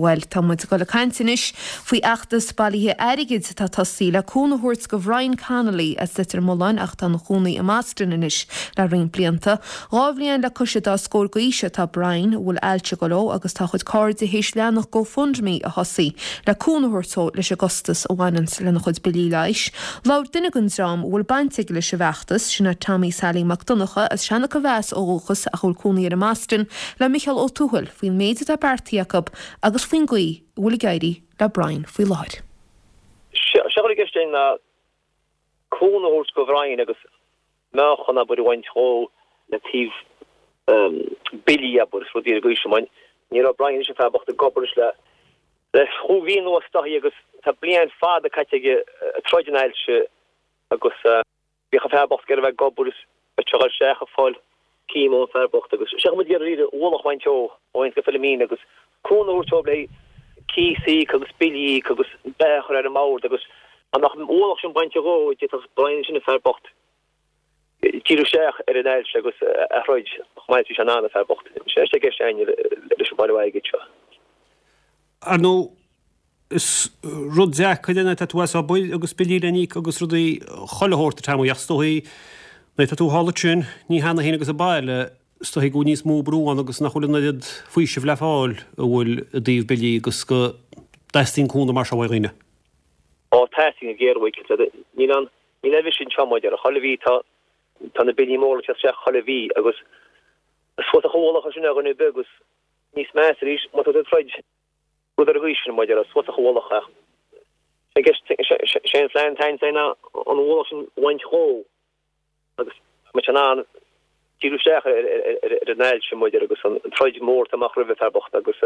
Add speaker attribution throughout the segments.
Speaker 1: Bhuel, tá muid ag dul ag caint anois faoi fheachtas bailithe airgid atá tosaithe le cúnamh a thabhairt go Bhrian Connolly as Leitir Mealláin ach atá ina chónaí i mBoston anois le roinnt blianta. 12 bhliain le cois an dá scór d'aois atá Brian, a bhfuil ailse ag dul dó agus tá a chuid cairde théis leathanach GoFundMe a thosaí le cúnamh a thabhairt dó leis an gcostas a bhaineanns lena chuid billí leighis. Labhair duine den dream a bhfuil baint aige leis an bhfeachtas, sin é Tommy Sailí Mac Donncha as Seancha Mheas ó dhúchas ach a bhfuil cónaí air i mBoston, le Micheál Ó Tuathail faoin méid atá beartaithe acu agus faoin gcaoi a bhfuil ag éirí le Brian faoi láthair.
Speaker 2: Sé atá i gceist againn ná cúnamh a thabhairt go Bhrian agus meáchan abair a bhaint dhó le taobh billí abair is rudaí ar an gcaoi sin mar ní raibh Brian anois an fear bocht ag obair anois le le chúig mhí anuas is dóichí agus tá bliain fada caite aige ag troid an ailse agus Bhíodh an fear bocht ag iarraidh a bheith ag obair is bheadh sé ag dul isteach ag fáil chemo an fear bocht agus sé muid ag iarraidh an ualach a bhaint dhó ó aon go Philomena agus cúnamh a thabhairt dóibh le cíos a íoc agus billí a íoc agus beatha a chur ar an mbord agus dá mbeadh an ualach sin bainte dhó d'fhéadfadh Brian ansin an fear bocht díriú isteach ar an ailse agus a throid chomh maith is bhí sé in ann an fear bocht. Sin é atá i gceist againn leis an bailiú airgid seo.
Speaker 3: Ar ndóigh, Is rud deacair é nuair atá tú as obair agus billí le n-íoc agus rudaí chuile shórt a Tommy ach is dóichí nuair atá tú thall ansin, ní hannamh féin agus an baile, is dóichí go bhfuil níos mó brú ann agus nach bhfuil an oiread faoisimh le fáil a bhfuil i dtaobh billí agus go dteastaíonn cúnamh mar seo uaidh dhaoine.
Speaker 2: Ó teastaíonn go géar uaidh, níl an, níl aon mhisean anseo mar a déarfá, chuile mhí tá, tá na billí móra ag teacht isteach chuile mhí agus is fuasach an ualach é sin ar dhuine ar bith agus níos measa arís má tá tú ag troid. Rud ar an gcaoi sin, mar a déarfá, is fuasach an ualach é. Sé an phlean atá againn ná an ualach sin a bhaint dhó agus go mbeadh sé in ann díriú isteach ar an ailse, mar a déarfá, agus an troid mhór atá amach roimh an fear bocht agus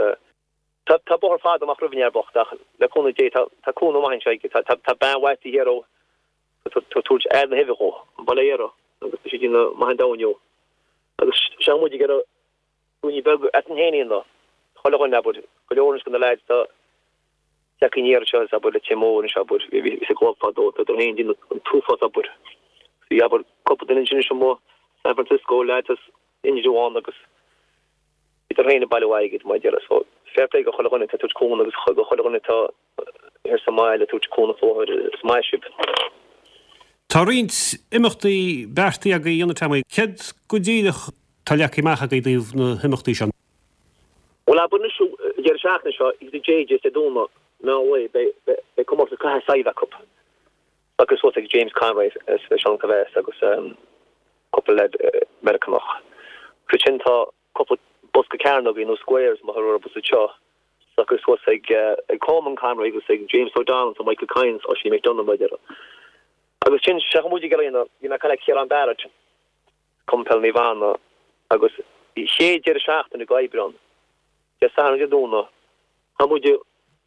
Speaker 2: tá bóthar fada amach roimh an fhear bocht ach le cúnamh Dé tá cúnamh maith anseo aige. Tá bean mhaith taobh thiar dhó ag tabhairt aire na huibhe dhó, an baile thiar agus tá sí ag déanamh maith an domhain dhó agus sé muid ag iarraidh Daoine beag eadrainn féin iad ná chuile dhuine, abair, go leor anois de na leaids atá tagtha aniar anseo is abair Leitir Móir anois abair, bhí sa gclub fadó, tá siad féin ag déanamh an t-uafás obair. Bhí abair cúpla duine ansin anois amuigh San Francisco, leaids as Indreabhán agus bhíodar féin ag bailiú airgid mar a déarfá. So fair play go chuile dhuine atá ag tabhairt cúnamh agus go chuile dhuine atá thiar sa mbaile ag tabhairt cúnamh faoi láthair, is maith sibh.
Speaker 3: Tá roinnt imeachtaí beartaithe agaibh a dhéanamh Tommy. Céard go díreach atá leagtha amach agaibh i dtaobh na himeachtaí seo?
Speaker 2: Bhuel, abair anois an deireadh seachtaine seo, thíos i JJ's Dé Domhnaigh, meán lae, beidh comórtas caitheamh saidhbh acu. Socraithe suas ag James Conroy as Seancha Mheas agus cúpla leaid Meiriceánach. Agus ansin tá cúpla bosca cearnógaí nó squares mar a thugtar orthu anseo, socraithe suas ag Colman Conroy agus ag James O'Donnell agus Michael Kynes, Oisín McDonagh mar a déarfá. Agus sin, sé muid ag iarraidh a dhéanamh, bhí mé ag caint le Ciarán Barrett, Cumann Peile Naomh Anna, agus chéad deireadh seachtaine go Aibreán, Dé Sathairn Dé Domhnaigh, tá muid i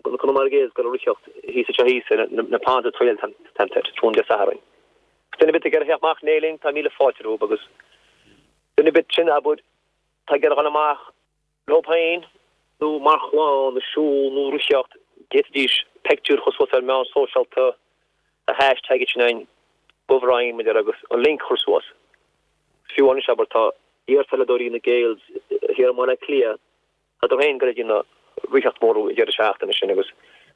Speaker 2: Conamara Gaels ag dul ag ritheacht thíos anseo thíos ar na Ponds Trail Centre, tráthnóna Dé Sathairn. Duine ar bith ag iarraidh theacht amach in éindí linn, tá míle fáilte rompu agus duine ar bith sin abair, tá ag iarraidh dhul amach leo féin nó mar chlann ag siúl nó ritheacht, d'fhéadfaidís peictiúr a chur suas ar meán sóisialta, a hashtag sin againn, go Bhrian, mar a déarfá, agus an link a chur suas. Fiú anois, abair, tá iarpheileadóirí na Gaels thiar i mBaile Átha Cliath, tádar féin ag dul ag déanamh ritheacht mór an deireadh seachtaine sin agus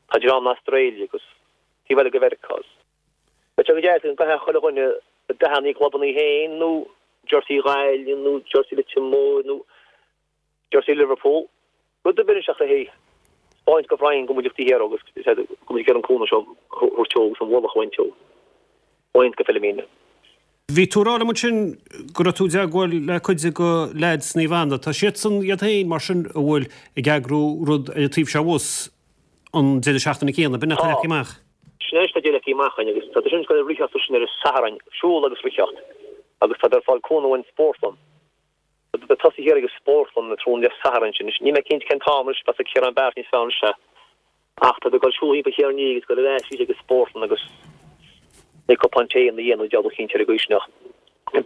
Speaker 2: tá dream na Astráile agus taobh eile de Mheiriceá. Beidh sé go deas go gcaithfeadh chuile dhuine dathanna a gclubanna féin nó jersey Ghaillimh nó jersey Leitir Móir nó jersey Liverpool, rud ar bith anois ach le thaispeáint go Bhrian go bhfuil muid taobh thiar agus go bhfuil muid ag iarraidh an cúnamh seo a thabhairt dó agus an ualach a bhaint dó. Bhaint go Philomena.
Speaker 3: Bhí tú ag rá liom ansin go raibh tú i dteagmháil le cuid de leaids Naomh Anna. Tá siadsan iad féin mar sin a bhfuil ag eagrú rud ar an taobh seo abhus an deireadh seachtaine céanna, b'in atá leagtha amach.
Speaker 2: Sin é atá leagtha amach againn agus tá sin ag dul ag ritheacht sin ar an Satharn, siúl agus ritheacht agus tá ag fáil cúnamh ón spórtlann. Tá tosaí thiar ag an spórtlann an tráthnóna Dé Sathairn sin. Níl mé cinnte cén t-am anois, bheadh Ciarán Barrett níos fearr anois é. Ach tá ag dul siúl thimpeall thiar an agus dul ar ais arís ag an spórtlann agus beidh cupán tae ina dhiaidh nó deabhal cinnte ar an gcaoi sin ach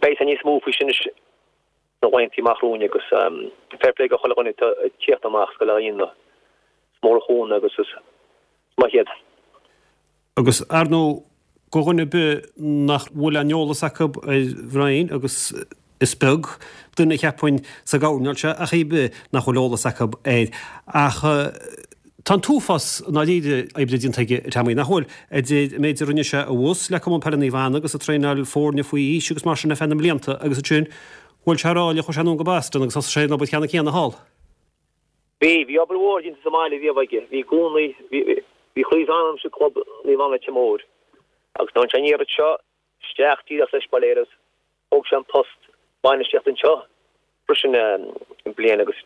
Speaker 2: beidh sé níos mó faoi sin anois sna laethanta amach romhainn agus fair play go chuile dhuine atá ag tíocht amach is go le hAoine. Is mór an chúnamh agus is maith iad.
Speaker 3: Agus ar ndóigh, go dhuine ar bith nach bhfuil aon eolas acu ar Bhrian, agus is beag duine cheapfainn sa gcoirnéal seo ach ar bith nach bhfuil eolas acu air. Ach. Tá an t-uafás i ndáiríre oibre déanta aige, a Tommy, nach bhfuil? Idir an méid a rinne sé abhus le Cumann Peile Naomh Anna agus ag traenáil foirne faoi aois agus mar sin ar feadh na mblianta agus ansin bhuail sé ráille, chuaigh sé anonn go Boston agus thosaigh sé an obair cheannann céanna thall.
Speaker 2: Bhí, bhí obair mhór déanta sa mbaile riamh aige. Bhí i gcónaí, bhí, bhí croí is anam sa club Naomh Anna Leitir Móir agus nuair a tháinig sé aniar anseo isteach díreach leis bail ó Dhia air agus thóg sé an post bainistíochta anseo freisin bliain agus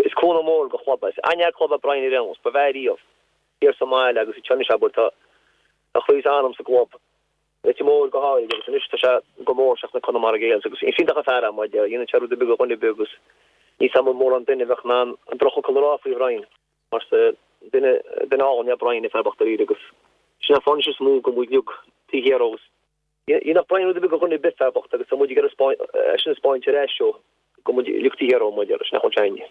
Speaker 2: is cúnamh mór go chlub é. Is an-fhear club é Brian ar aon nós, ba bhfearr riamh thiar sa mbaile agus anseo anois abair tá a chroí is a anam sa gclub, Leitir Móir go háirid agus anois tá sé go mór isteach sna Conamara Gaels agus is iontach an fear é mar a dhéanann sé rud ar bith do dhuine ar bith agus níl 's a'm mórán duine a bheadh in ann an drochfhocal a rá faoi Bhrian mar is duine duine álainn é Brian an fear bocht dáiríre agus sin an fáth anois is mó go bhfuil muid uilig taobh thiar dhó agus Dhéanfadh Brian rud ar bith do dhuine ar bith fear bocht agus tá muid ag iarraidh é sin a 'spáint ar ais dó go bhfuil muid uilig taobh thiar dhó mar sin nach bhfuil sé againne.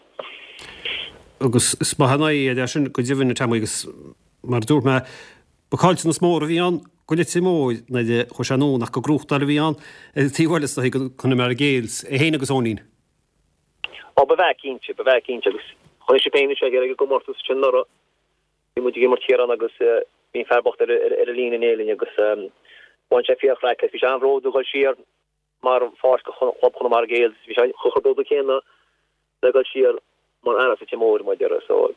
Speaker 3: Agus is maith an aghaidh é sin go deimhin a Tommy agus mar a dúirt mé ba caillteanas mór a bhí ann go Leitir Móir nuair a chuaigh sé anonn ach gur gnóthachtáil a bhí ann ar an taobh eile is dóigh go Conamara Gaels, é féin agus Eoinín.
Speaker 2: Ó ba bhfear cinnte, ba bhfear cinnte agus chonaic sibh féin anseo ag an gcomórtas sin anuraidh. Bhí muid ag imirt thiar ann agus bhí an fear bocht ar an líne in éindí linn agus bhain sé fíor-chraic as. Bhí sé an-bhródúil dul siar mar pháirc do chlub Chonamara Gaels. Bhí sé chomh bródúil céanna le dul siar mar fhear as Leitir Móir, mar a déarfá. So.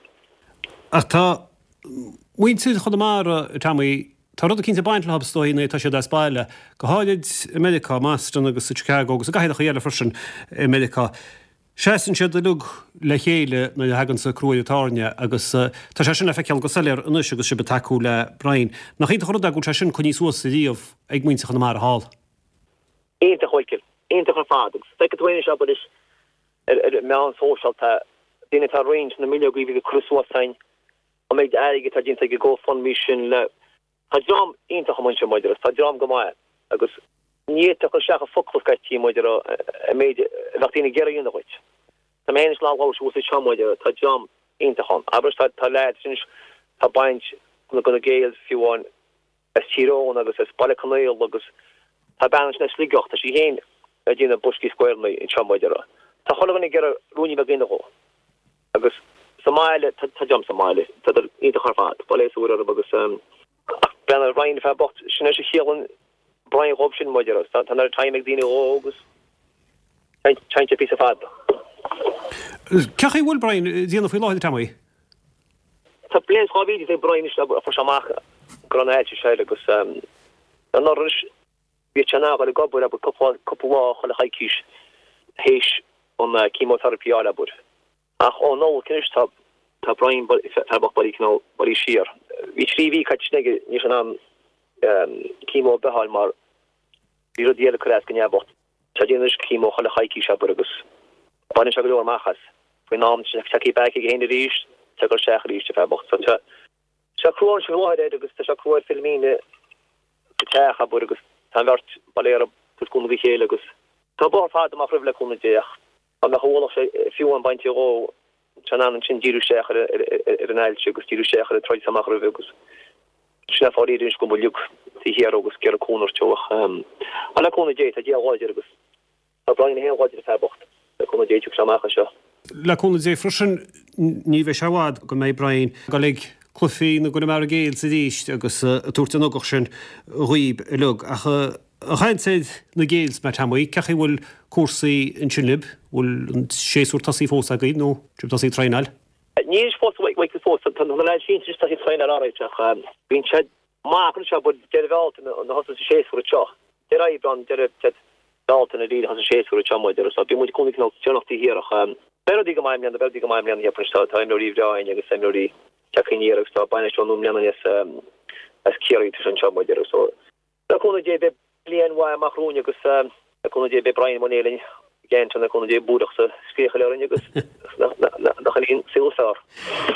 Speaker 3: Ach tá muintir Chonamara, a Tommy, tá rud eicínt ag baint leo is dóigh nuair atá siad as baile, go háirid i Meiriceá, i mBoston agus i Chicago agus i gcathracha eile freisin i Meiriceá. Seasann siad uilig le chéile nuair a thagann crú ar an tairne agus tá sé sin le feiceáil go soiléir anois agus sibh ag tacú le Brian. Nach iontach an rud é go bhfuil sé sin coinnithe suas riamh ag muintir Chonamara thall?
Speaker 2: Iontach, a Mhichíl. Iontach ar fad. Agus feicfidh tú anois, abair, ar ar meán sóisialta, daoine atá ag roinnt na mbileogaí a bhí curtha suas againn, an méid airgid atá déanta ag an GoFundMe sin le Tá dream iontach amuigh ansin maidir agus tá dream go maith agus ní fhéadfá a chur isteach i bhfocla scaití maidir an méid a bheadh daoine ag iarraidh a dhéanamh dhuit. Tá mé féin anois ag labhairt thuas anseo maidir tá dream iontach ann. Abair tá tá leaids anois tá baint go na Gaels fiú amháin as Tír Eoghain agus as Baile Conaola agus tá bean ansin as Sligeach tá sí féin ag déanamh boscaí squareanna anseo maidir tá chuile dhuine ag iarraidh ruainne beag a dhéanamh dhó. Agus sa mbaile, tá dream sa mbaile, tá iontach ar fad, bail ó Dhia orthu agus ach breathnaigh ar Brian, fear bocht, sin é a chiallaíonn Brian dhóibh sin, maidir agus tá an oiread time ag daoine dhó agus téann sé píosa fada.
Speaker 3: Cén chaoi a bhfuil Brian ag déanamh faoi láthair, Tommy?
Speaker 2: Tá bliain is 2 mhí ag Brian anois a fuair sé amach go raibh an ailse seo air agus anuraidh anois bhí sé in ann a dhul ag obair abair cúpla cúpla lá chuile choicís théis an chemotherapy a fháil abair. Ach ó Nollaig anois tá tá Brian fear bocht bailithe cineál bailithe siar. Bhí 3 mhí caite sin aige ní raibh sé in ann chemo ar bith a fháil mar bhí rudaí eile ag cur as go neamhbhocht. Tá déanamh anois chemo chuile choicís abair agus baineann sé go leor amach as. Faoin am tá sé tagtha back aige féin arís tá sé ag dul isteach arís an fear bocht. So tá sé crua anois faoi láthair air agus tá sé crua ar Philomena sa teach abair agus tá an bheirt bail ó Dhia orthu ag tabhairt cúnamh dá chéile agus tá bóthar fada amach roimhe le cúnamh Dé ach dá mbeadh a ualach sé fiú amháin bainte dhó tá sé in ann ansin díriú isteach ar ar an ailse agus díriú isteach ar an troid atá amach roimhe agus sin an fáth anois go bhfuil muid uilig taobh thiar dhó agus ag iarraidh cúnamh a thabhairt dó ach le cúnamh Dé tá Dia láidir agus Tá Brian é féin láidir an fear bocht. Le cúnamh Dé tiocfaidh sé amach as seo.
Speaker 3: Le cúnamh Dé freisin ní bheidh sé i bhfad go mbeidh Brian ag dul ag cluichí na gConamara Gaels arís agus ag tabhairt an ugach sin dhaoib uilig. Ach ag caint ar na Gaels mar Tommy, cén chaoi a bhfuil cúrsaí ansin libh? Bhfuil an séasúr tosaithe fós agaibh nó sibh tosaithe ag traenáil?
Speaker 2: Níl fós, fós. Tá na leaids sinsir tosaithe ag traenáil alright ach bíonn siad Maith anois abair deireadh Bhealtaine a thosós an séasúr anseo. Deireadh Aibreán, deireadh Bealtaine a thosaíonn an séasúr anseo muid so bíonn muid i gcónaí cineál déanach taobh thiar ach beidh rudaí go maith i mbliana, beidh rudaí go maith i mbliana cheapfainn tá tá imreoirí bhreá againn agus imreoirí tagtha aniar agus tá bainisteoir nua i mbliana as as Ciarraí tá sé anseo muid so Le cúnamh Dé beidh bliain mhaith amach romhainn agus le cúnamh Dé beidh Brian i mbun Éirinn again le cúnamh Dé búireach sa scréachail orainn agus nach in an saol is fearr.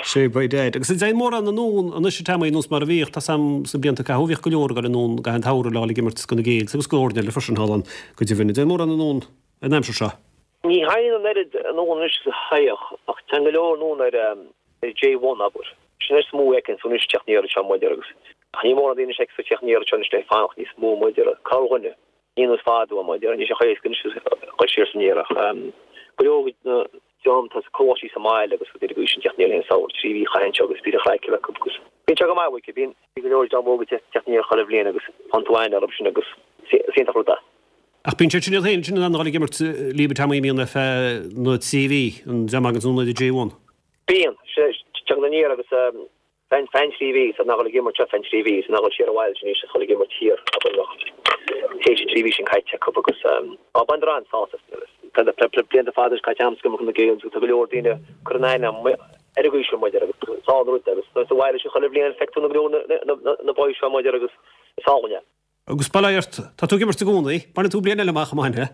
Speaker 3: Sé by dad. Agus an dtéann mórán anonn anois a Tommy nós mar a bhíodh, tá's a'm sna blianta a caitheadh bhíodh go leor ag dul anonn i gcaitheamh an tsamhraidh le dhul ag imirt do na Gaels agus do fhoirne eile freisin thall ann go deimhin. An dtéann mórán anonn an aimsir seo?
Speaker 2: Ní théann an oiread anonn anois is a théadh ach téann go leor anonn ar J1 abair. Sin is mó a fheiceann tú anois teacht aniar anseo maidir agus ach ní mórán daoine anois a fheiceann tú teacht aniar anseo anois le fanacht níos mó maidir corrdhuine. Ní nós fadó maidir níl sé chomh héasca anois dul siar is aniar ach go leor na. dream atá sa coláistí sa mbaile agus rudaí ar an gcaoi sin teacht aniar le haghaidh an samhradh, 3 mhí a chaitheamh anseo agus bíonn an chraic acu agus bíonn sé go maith uaithi, bíonn go leor dream óg ag teacht aniar chuile bhliain agus faigheann tú aithne orthu sin agus is iontach rud é.
Speaker 3: Ach bíonn siad sin iad féin sin in ann a dhul ag imirt libh a Tommy bíonn ar feadh na 3 mhí, an dream a thaganns anonn ar an J1.
Speaker 2: Bíonn, tagann aniar agus feadh an 3 mhí, is in ann a dhul ag imirt seo feadh an 3 mhí, is in ann a dhul siar abhaile sin anois is dhul ag imirt thiar abair nach théis an 3 mhí sin caite acu agus á baineadar an-sásamh as. Tá blianta fada anois caite a'm ag imirt na Gaels agus tá go leor daoine ag cur in aithne ar an gcaoi sin muid agus is álainn an rud é agus nuair sa bhaile sin chuile bhliain feictear na go leor na boys seo muid agus is álainn é.
Speaker 3: Agus bail ó Dhia ort, tá tú ag imirt i gcónaí, bainfidh tú bliain eile amach, an mbainfidh?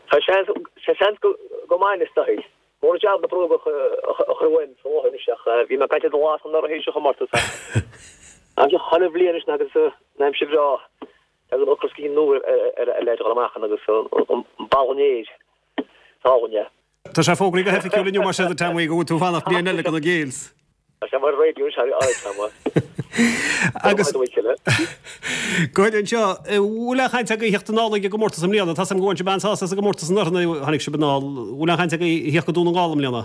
Speaker 2: Tá seans, tá seans go mbainfidh is dóigh. Mór an jab na bróga a chur uaim sa láthair anois ach bhí mé ag caint ar do lá san anuraidh théis an chomórtais ach aimsir chuile bhliain anois agus an aimsir bhreá tagann ocras go nua ar ar leid a dhul amach ann agus an balún aeir is álainn é.
Speaker 3: Tá sé fógraithe go hoifigiúil inniu mar sin a Tommy go bhfuil tú ag fanacht bliain eile do na Gaels.
Speaker 2: Tá sé mar raidió anois thar áit ama.
Speaker 3: Agus go háirithe anseo, bhfuil aon chaint agaibh a theacht anall ag an gcomórtas i mbliana? Tá 's agam go bhain sibh an-sásamh as an gcomórtas anuraidh nuair a tháinig sibh anall. Bhfuil aon chaint agaibh a theacht go Dún na nGall i mbliana?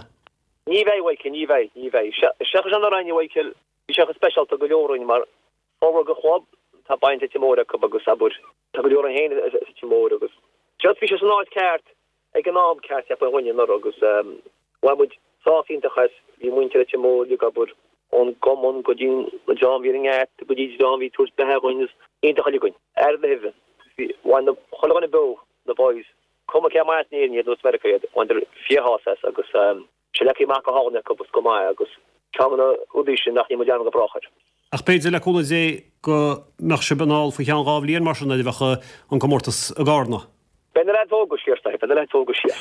Speaker 2: Ní bheidh, a Mhichael, ní bheidh, ní bheidh. Seachas anuraidh, a Mhichael, bhí sé chomh speisialta go leor againn mar formhór den chlub, tá baint Leitir Móir acu agus abair, tá go leor againn féin as Leitir Móir agus just bhí sé san áit ceart ag an am ceart cheapfainn dhuine anuraidh agus bhain muid sásamh iontach as, bhí muintir Leitir Móir uilig abair ón gcumann go dtí an dream a bhí ar an ngeata go dtí an dream a bhí ag tabhairt beatha dhuinn is iontach uilig againn, aire na huibhe, bhí, bhain na, chuile dhuine beo, na boys, cuma cé as in Éirinn iad nó as Meiriceá iad, bhaineadar fíorshásamh as agus sé leagtha amach go hálainn acu agus go maith agus ceann de na rudaí sin nach ndéanfaidh muid dearmad go brách air.
Speaker 3: Ach b'fhéidir, le cúnamh Dé, go mbeadh sibh anall faoi cheann 2 bhliain mar sin nuair a bheadh an comórtas i gCarna.
Speaker 2: Beidh na leaids óga siar, Beidh na leaids óga siar.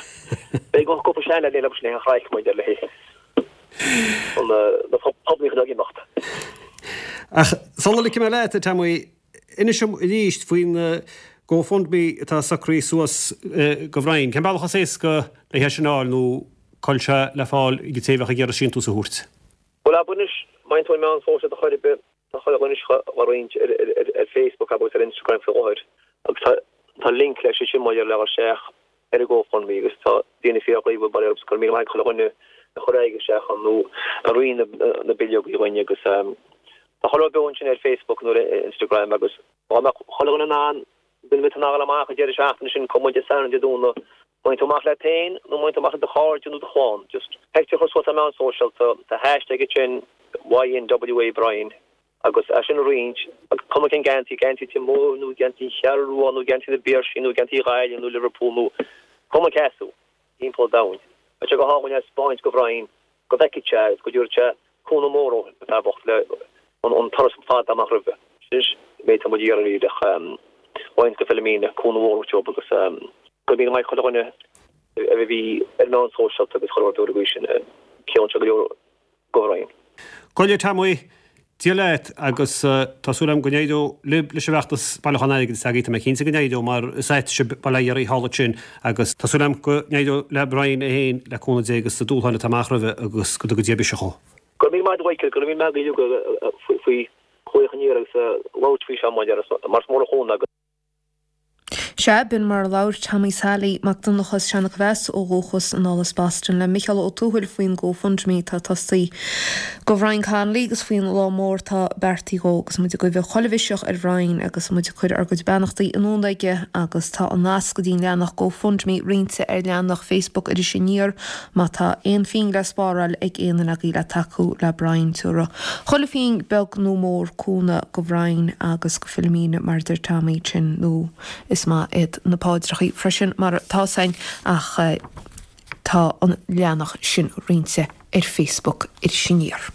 Speaker 2: Beidh cúpla seanleaid eile agus le chraic muid ar le an na poblíocht ag imeacht.
Speaker 3: Ach sula ligfidh mé leat, a Tommy, inis dom arís faoin GoFundMe atá socraithe suas do Bhrian. Cén bealach is éasca le hé sin a fháil nó cá bhfuil sé le fáil ag an té a bheadh ag iarraidh síntiús a thabhairt?
Speaker 2: Bhuel, abair anois, má théann tú ar meán sóisialta chor ar bith, Tá chuile dhuine á roinnt ar Facebook agus ar Instagram faoi láthair agus tá tá link leis ansin maidir le dhul isteach ar an GoFundMe agus tá daoine fíorghníomhach bail ó Dhia orthu agus go raibh míle maith ag chuile dhuine a chuir airgead isteach ann nó a roinn na bileogaí dhuinn agus tá chuile rud beo ansin ar Facebook nó ar Instagram agus dá mbeadh chuile dhuine in ann duine ar bith in ann a dhul amach an deireadh seachtaine sin cuma Dé Sathairn Dé Domhnaigh Má théann tú amach leat féin nó má théann tú amach le do chairde nó do chlann, just pictiúr a chur suas ar meáin sóisialta, tá hashtag ansin YNWA Brian agus é sin a roinnt agus cuma cén geansaí, geansaí Leitir Móir nó geansaí an Cheathrú Rua nó geansaí na bPiarsaigh nó geansaí Ghaillimh nó Liverpool nó cuma cé as tú timpeall an domhain. Beidh sé go hálainn é a 'speáint go Bhrian go bhfeicfidh sé agus go dtabharfaidh sé cúnamh mór dó, an fear bocht, le an turas fada amach roimhe. Sin an méid atá muid ag iarraidh ach roinnt go Philomena, cúnamh mhór a thabhairt dóibh agus go raibh míle maith ag chuile dhuine a bhí ar meáin sóisialta agus chuile rud uair sin, ciallaíonn sé go leor go Bhrian.
Speaker 3: Go leor Tommy, Dia leat agus tá súil agam go n-éireoidh libh leis an bhfeachtas bailiúchán airgid atá agaibh. Tá mé cinnte go n-éireoidh mar is ait sibh bail ó Dhia oraibh thall ansin agus tá súil agam go n-éireoidh le Brian é féin le cúnamh Dé agus na dúshláin atá amach roimhe agus go dtuga Dia biseach dhó.
Speaker 2: Go raibh míle maith agat a Mhichael, go raibh míle maith agat faoi ghlaoch aniar agus labhairt faoi seo mar is mór an chúnamh agus.
Speaker 1: Sea, b'in mar a labhair Tommy Sally Mac Donncha as Seanach Mheas ó dhúchas anall as Boston le Micheál Ó Tuathail faoin GoFundMe atá tosaithe do Bhrian Connolly agus faoin lá mór atá beartaithe dhó agus muid ag guí chuile mhiseach ar Bhrian agus muid ag cur ár gcuid beannachtaí anonn aige agus tá an nasc go dtí an leathanach GoFundMe roinnte ar leathanach Facebook Iris Aniar Má tá aon phingin le spáráil ag aon duine agaibh le tacú le Brian tabharfaidh chuile phingin beag nó mór cúnamh go Bhrian agus go Philomena mar a deir Tommy sin nó is maith iad na paidreachaí freisin mar tá's a'inn ach tá an leathanach sin roinnte ar Facebook Iris Aniar.